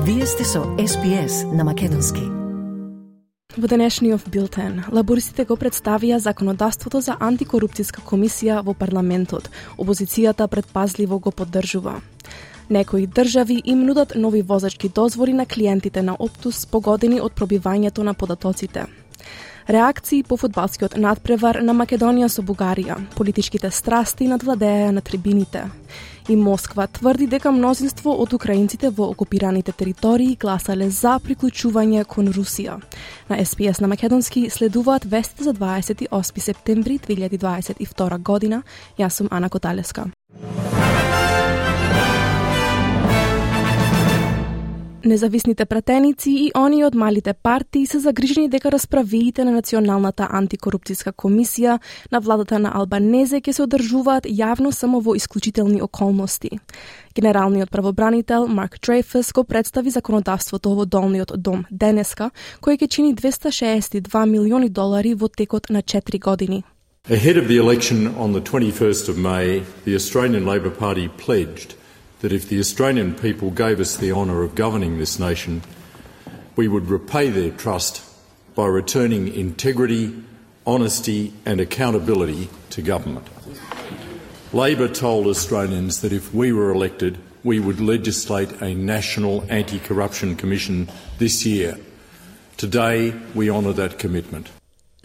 Вие сте со SPS на македонски. Во денешниот билтен, лабористите го представија законодавството за антикорупцијска комисија во парламентот. Опозицијата предпазливо го поддржува. Некои држави им нудат нови возачки дозволи на клиентите на Optus погодени од пробивањето на податоците. Реакции по фудбалскиот надпревар на Македонија со Бугарија, политичките страсти надвладеа на трибините. И Москва тврди дека мнозинство од украинците во окупираните територии гласале за приклучување кон Русија. На SPS на македонски следуваат вестите за 28 септември 2022 година. Јас сум Ана Коталеска. Независните пратеници и они од малите партии се загрижени дека расправиите на Националната антикорупцијска комисија на владата на Албанезе ќе се одржуваат јавно само во исклучителни околности. Генералниот правобранител Марк Дрейфус го представи законодавството во Долниот дом денеска, кој ќе чини $262 милиони во текот на 4 години. Ahead of the election on the 21st of May, the Australian Labor Party pledged that if the Australian people gave us the honour of governing this nation, we would repay their trust by returning integrity, honesty and accountability to government. Labor told Australians that if we were elected, we would legislate a national anti-corruption commission this year. Today, we honour that commitment.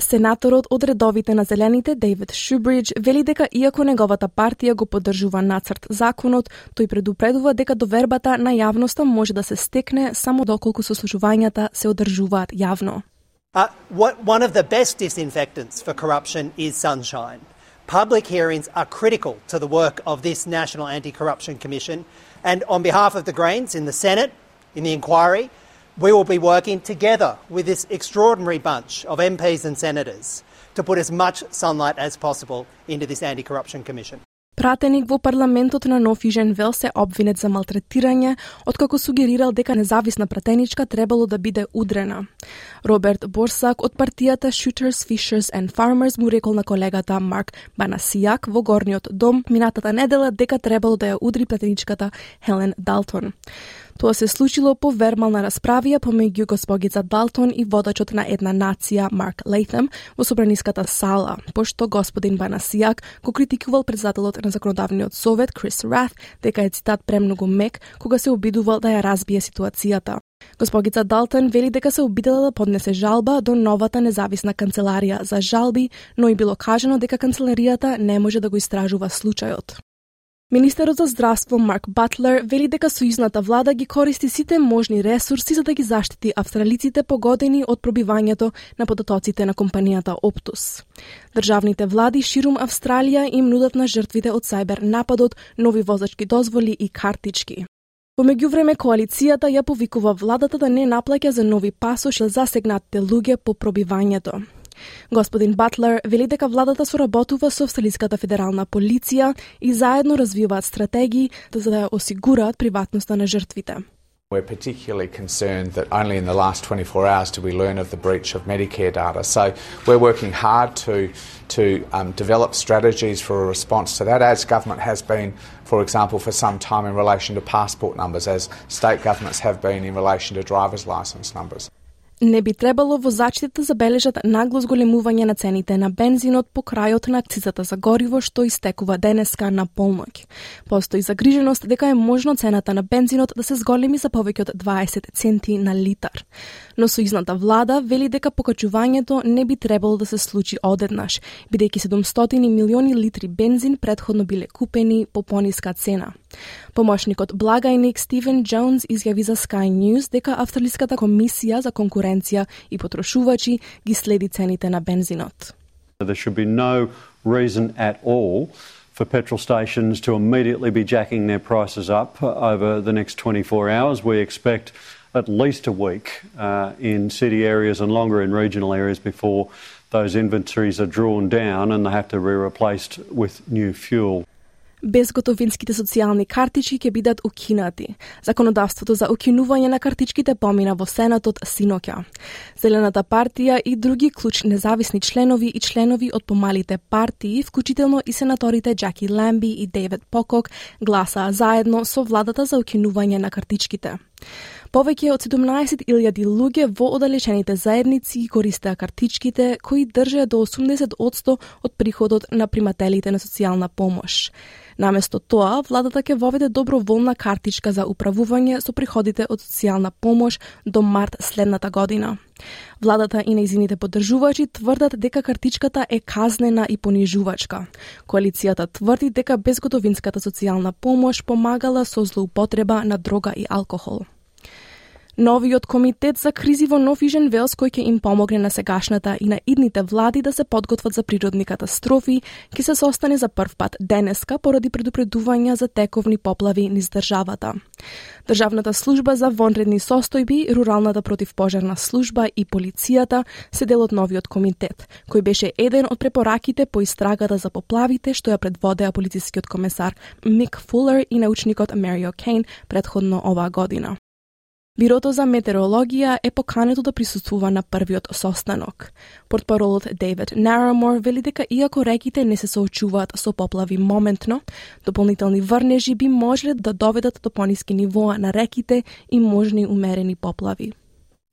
Сенаторот од редовите на Зелените, Дейвид Шубридж, вели дека иако неговата партија го поддржува нацрт законот, тој предупредува дека довербата на јавноста може да се стекне само доколку сослушувањата се одржуваат јавно. One of the best disinfectants for corruption is sunshine. Public hearings are critical to the work of this National Anti-Corruption Commission, and on behalf of the Greens in the Senate, in the inquiry, we will be working together with this extraordinary bunch of MPs and senators to put as much sunlight as possible into this Anti-Corruption Commission. Пратеник во парламентот на Нов Южен Велс се обвинет за малтретирање, откако сугерирал дека независна пратеничка требало да биде удрена. Роберт Борсак од партијата Shooters, Fishers and Farmers му рекол на колегата Марк Банасијак во Горниот дом минатата недела дека требало да ја удри пратеничката Хелен Далтон. Тоа се случило по вербална расправија помеѓу госпогица Далтон и водачот на една нација Марк Лейтем во собраниската сала, пошто господин Банасијак го критикувал председателот на законодавниот совет Крис Рат дека е цитат премногу мек кога се обидувал да ја разбие ситуацијата. Госпогица Далтон вели дека се обидела да поднесе жалба до новата независна канцеларија за жалби, но и било кажано дека канцеларијата не може да го истражува случајот. Министерот за здравство Марк Батлер вели дека сојузната влада ги користи сите можни ресурси за да ги заштити австралиците погодени од пробивањето на податоците на компанијата Optus. Државните влади ширум Австралија им нудат на жртвите од сајбер нападот нови возачки дозволи и картички. Во меѓувреме коалицијата ја повикува владата да не наплаќа за нови пасош за засегнатите луѓе по пробивањето. Господин Батлер вели дека владата соработува со австралиската федерална полиција и заедно развиваат стратегии за да ја осигураат приватноста на жртвите. We're particularly concerned that only in the last 24 hours did we learn of the breach of Medicare data. So we're working hard to develop strategies for a response to that, as government has been, for example, for some time in relation to passport numbers, as state governments have been in relation to driver's licence numbers. Не би требало возачите да забележат нагло зголемување на цените на бензинот по крајот на акцизата за гориво што истекува денеска на полноќ. Постои загриженост дека е можно цената на бензинот да се зголеми за повеќе од 20 центи на литар. Но сојузната влада вели дека покачувањето не би требало да се случи одеднаш, бидејќи 700 милиони литри бензин претходно биле купени по пониска цена. Помошникот благајник Стивен Джонс изјави за Sky News дека Австралиската комисија за конкуренција и потрошувачи ги следи цените на бензинот. There should be no reason at all for petrol stations to immediately be jacking their prices up over the next 24 hours. We expect at least a week in city areas and longer in regional areas before those inventories are drawn down and they have to be replaced with new fuel. Безготовинските социјални картички ќе бидат укинати. Законодавството за укинување на картичките помина во Сенатот синоќа. Зелената партија и други клучни независни членови и членови од помалите партии, вклучително и сенаторите Джаки Ламби и Дейвид Покок, гласаа заедно со владата за укинување на картичките. Повеќе од 17.000 луѓе во оддалечените заедници користеа картичките кои држеа до 80% од приходот на примателите на социјална помош. Наместо тоа, владата ќе воведе доброволна картичка за управување со приходите од социјална помош до март следната година. Владата и нејзините поддржувачи тврдат дека картичката е казнена и понижувачка. Коалицијата тврди дека безготовинската социјална помош помагала со злоупотреба на дрога и алкохол. Новиот комитет за кризи во Нов Јужен Велс, кој ќе им помогне на сегашната и на идните влади да се подготват за природни катастрофи, ќе се состане за прв пат денеска поради предупредувања за тековни поплави низ државата. Државната служба за вонредни состојби, руралната противпожарна служба и полицијата се дел од новиот комитет, кој беше еден од препораките по истрагата за поплавите што ја предводеа полицискиот комесар Мик Фулер и научникот Марио Кейн предходно оваа година. Бирото за метеорологија е покането да присуствува на првиот состанок. Портпаролот Дейвид Нарамор вели дека иако реките не се соочуваат со поплави моментно, дополнителни врнежи би можеле да доведат до пониски нивоа на реките и можни умерени поплави.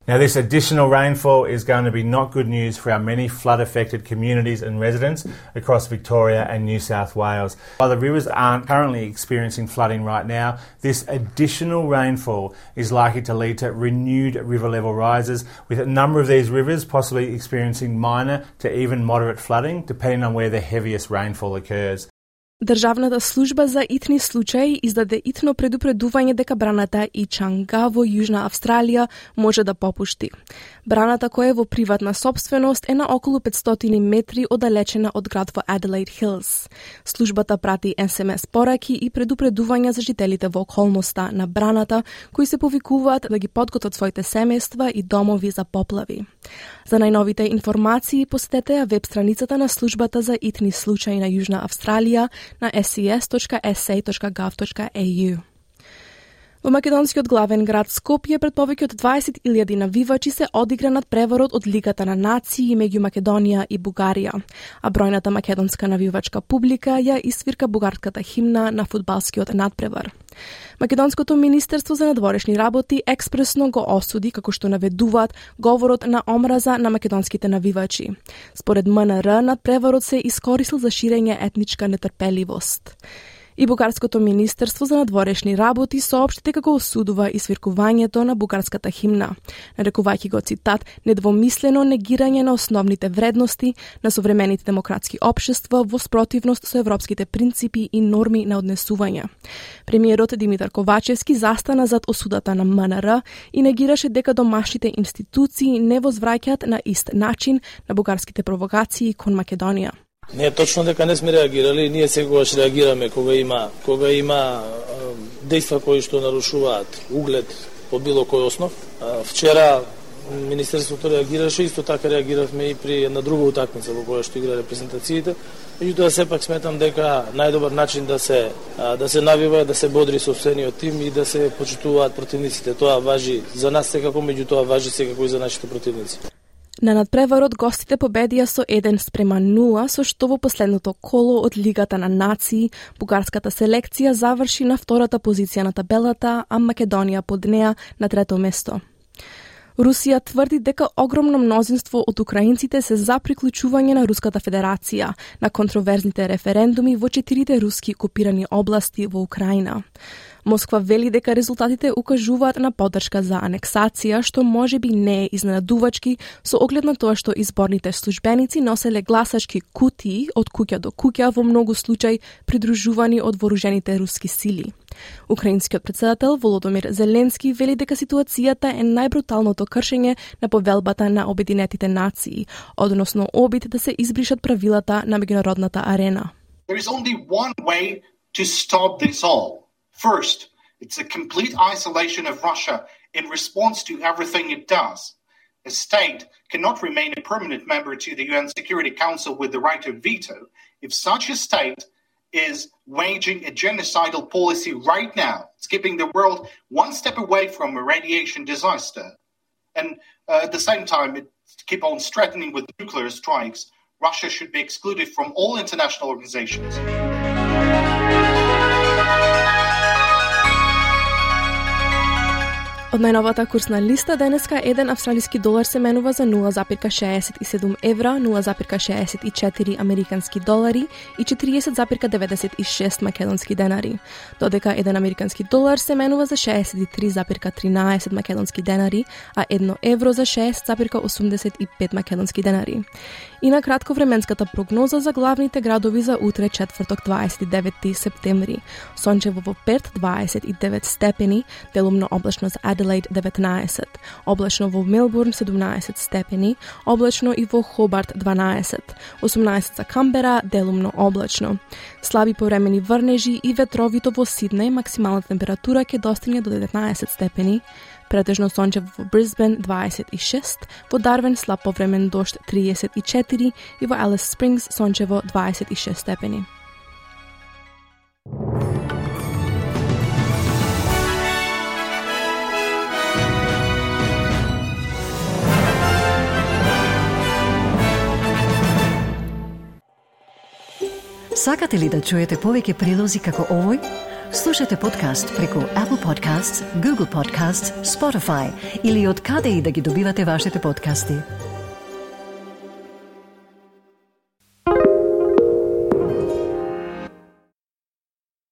Now, this additional rainfall is going to be not good news for our many flood-affected communities and residents across Victoria and New South Wales. While the rivers aren't currently experiencing flooding right now, this additional rainfall is likely to lead to renewed river level rises, with a number of these rivers possibly experiencing minor to even moderate flooding, depending on where the heaviest rainfall occurs. Државната служба за итни случаи издаде итно предупредување дека браната Ичанга во Јужна Австралија може да попушти. Браната, која е во приватна собственост, е на околу 500 метри оддалечена од град во Adelaide Hills. Службата прати SMS пораки и предупредувања за жителите во околноста на браната, кои се повикуваат да ги подготват своите семејства и домови за поплави. За најновите информации посетете ја веб страницата на службата за итни случаи на Јужна Австралија на ses.sa.gov.au. Во македонскиот главен град Скопје пред повеќе од 20.000 навивачи се одигра над преварот од Лигата на нации меѓу Македонија и Бугарија, а бројната македонска навивачка публика ја исвирка бугарската химна на фудбалскиот надпревар. Македонското министерство за надворешни работи експресно го осуди, како што наведуваат, говорот на омраза на македонските навивачи. Според МНР, надпреварот се искористил за ширење етничка нетрпеливост. И Бугарското министерство за надворешни работи соопшти дека го осудува исвиркувањето на бугарската химна, нарекувајќи го цитат недвомислено негирање на основните вредности на современите демократски општества во спротивност со европските принципи и норми на однесување. Премиерот Димитар Ковачевски застана зад осудата на МНР и негираше дека домашните институции не возвраќаат на ист начин на бугарските провокации кон Македонија. Не е точно дека не сме реагирали, ние секогаш реагираме кога има дејства кои што нарушуваат углед по било кој основ. Вчера Министерството реагираше, исто така реагиравме и при една друга утакмица во која што игра репрезентациите. Меѓутоа сепак сметам дека најдобар начин да се навива, да се бодри сопствениот тим и да се почитуваат противниците. Тоа важи за нас секако, меѓутоа важи секако и за нашите противници. На надпреварот гостите победија со 1:0, со што во последното коло од Лигата на нации бугарската селекција заврши на втората позиција на табелата, а Македонија под неа на трето место. Русија тврди дека огромно мнозинство од украинците се за приклучување на Руската Федерација на контроверзните референдуми во 4 руски окупирани области во Украина. Москва вели дека резултатите укажуваат на поддршка за анексација, што можеби не е изненадувачки со оглед на тоа што изборните службеници носеле гласачки кутии од куќа до куќа во многу случаи придружувани од вооружените руски сили. Украинскиот председател Володомир Зеленски вели дека ситуацијата е најбруталното кршење на повелбата на Обединетите нации, односно обид да се избришат правилата на меѓународната арена. There is only one way to stop this all. First, it's a complete isolation of Russia in response to everything it does. A state cannot remain a permanent member to the UN Security Council with the right of veto if such a state is waging a genocidal policy right now. It's keeping the world one step away from a radiation disaster. And at the same time, it keep on threatening with nuclear strikes. Russia should be excluded from all international organizations. Од најновата курсна листа денеска еден австралиски долар се менува за 0,67 евра, 0,64 американски долари и 40,96 македонски денари, додека еден американски долар се менува за 63,13 македонски денари, а 1 евро за 6,85 македонски денари. И на кратко временската прогноза за главните градови за утре четврток 29 септември. Сончево во Перт 29 степени, делумно облачно за Аделаид 19, облачно во Мелбурн 17 степени, облачно и во Хобарт 12, 18 за Камбера, делумно облачно. Слаби повремени врнежи и ветровито во Сиднеј, максималната температура ќе достигне до 19 степени, претежно сончево во Брисбен 26, во Дарвин слаб повремен дожд 34 и во Алис Спрингс сончево 26 степени. Сакате ли да чуете повеќе прилози како овој? Слушате подкаст преку Apple Podcasts, Google Podcasts, Spotify или од каде и да ги добивате вашите подкасти.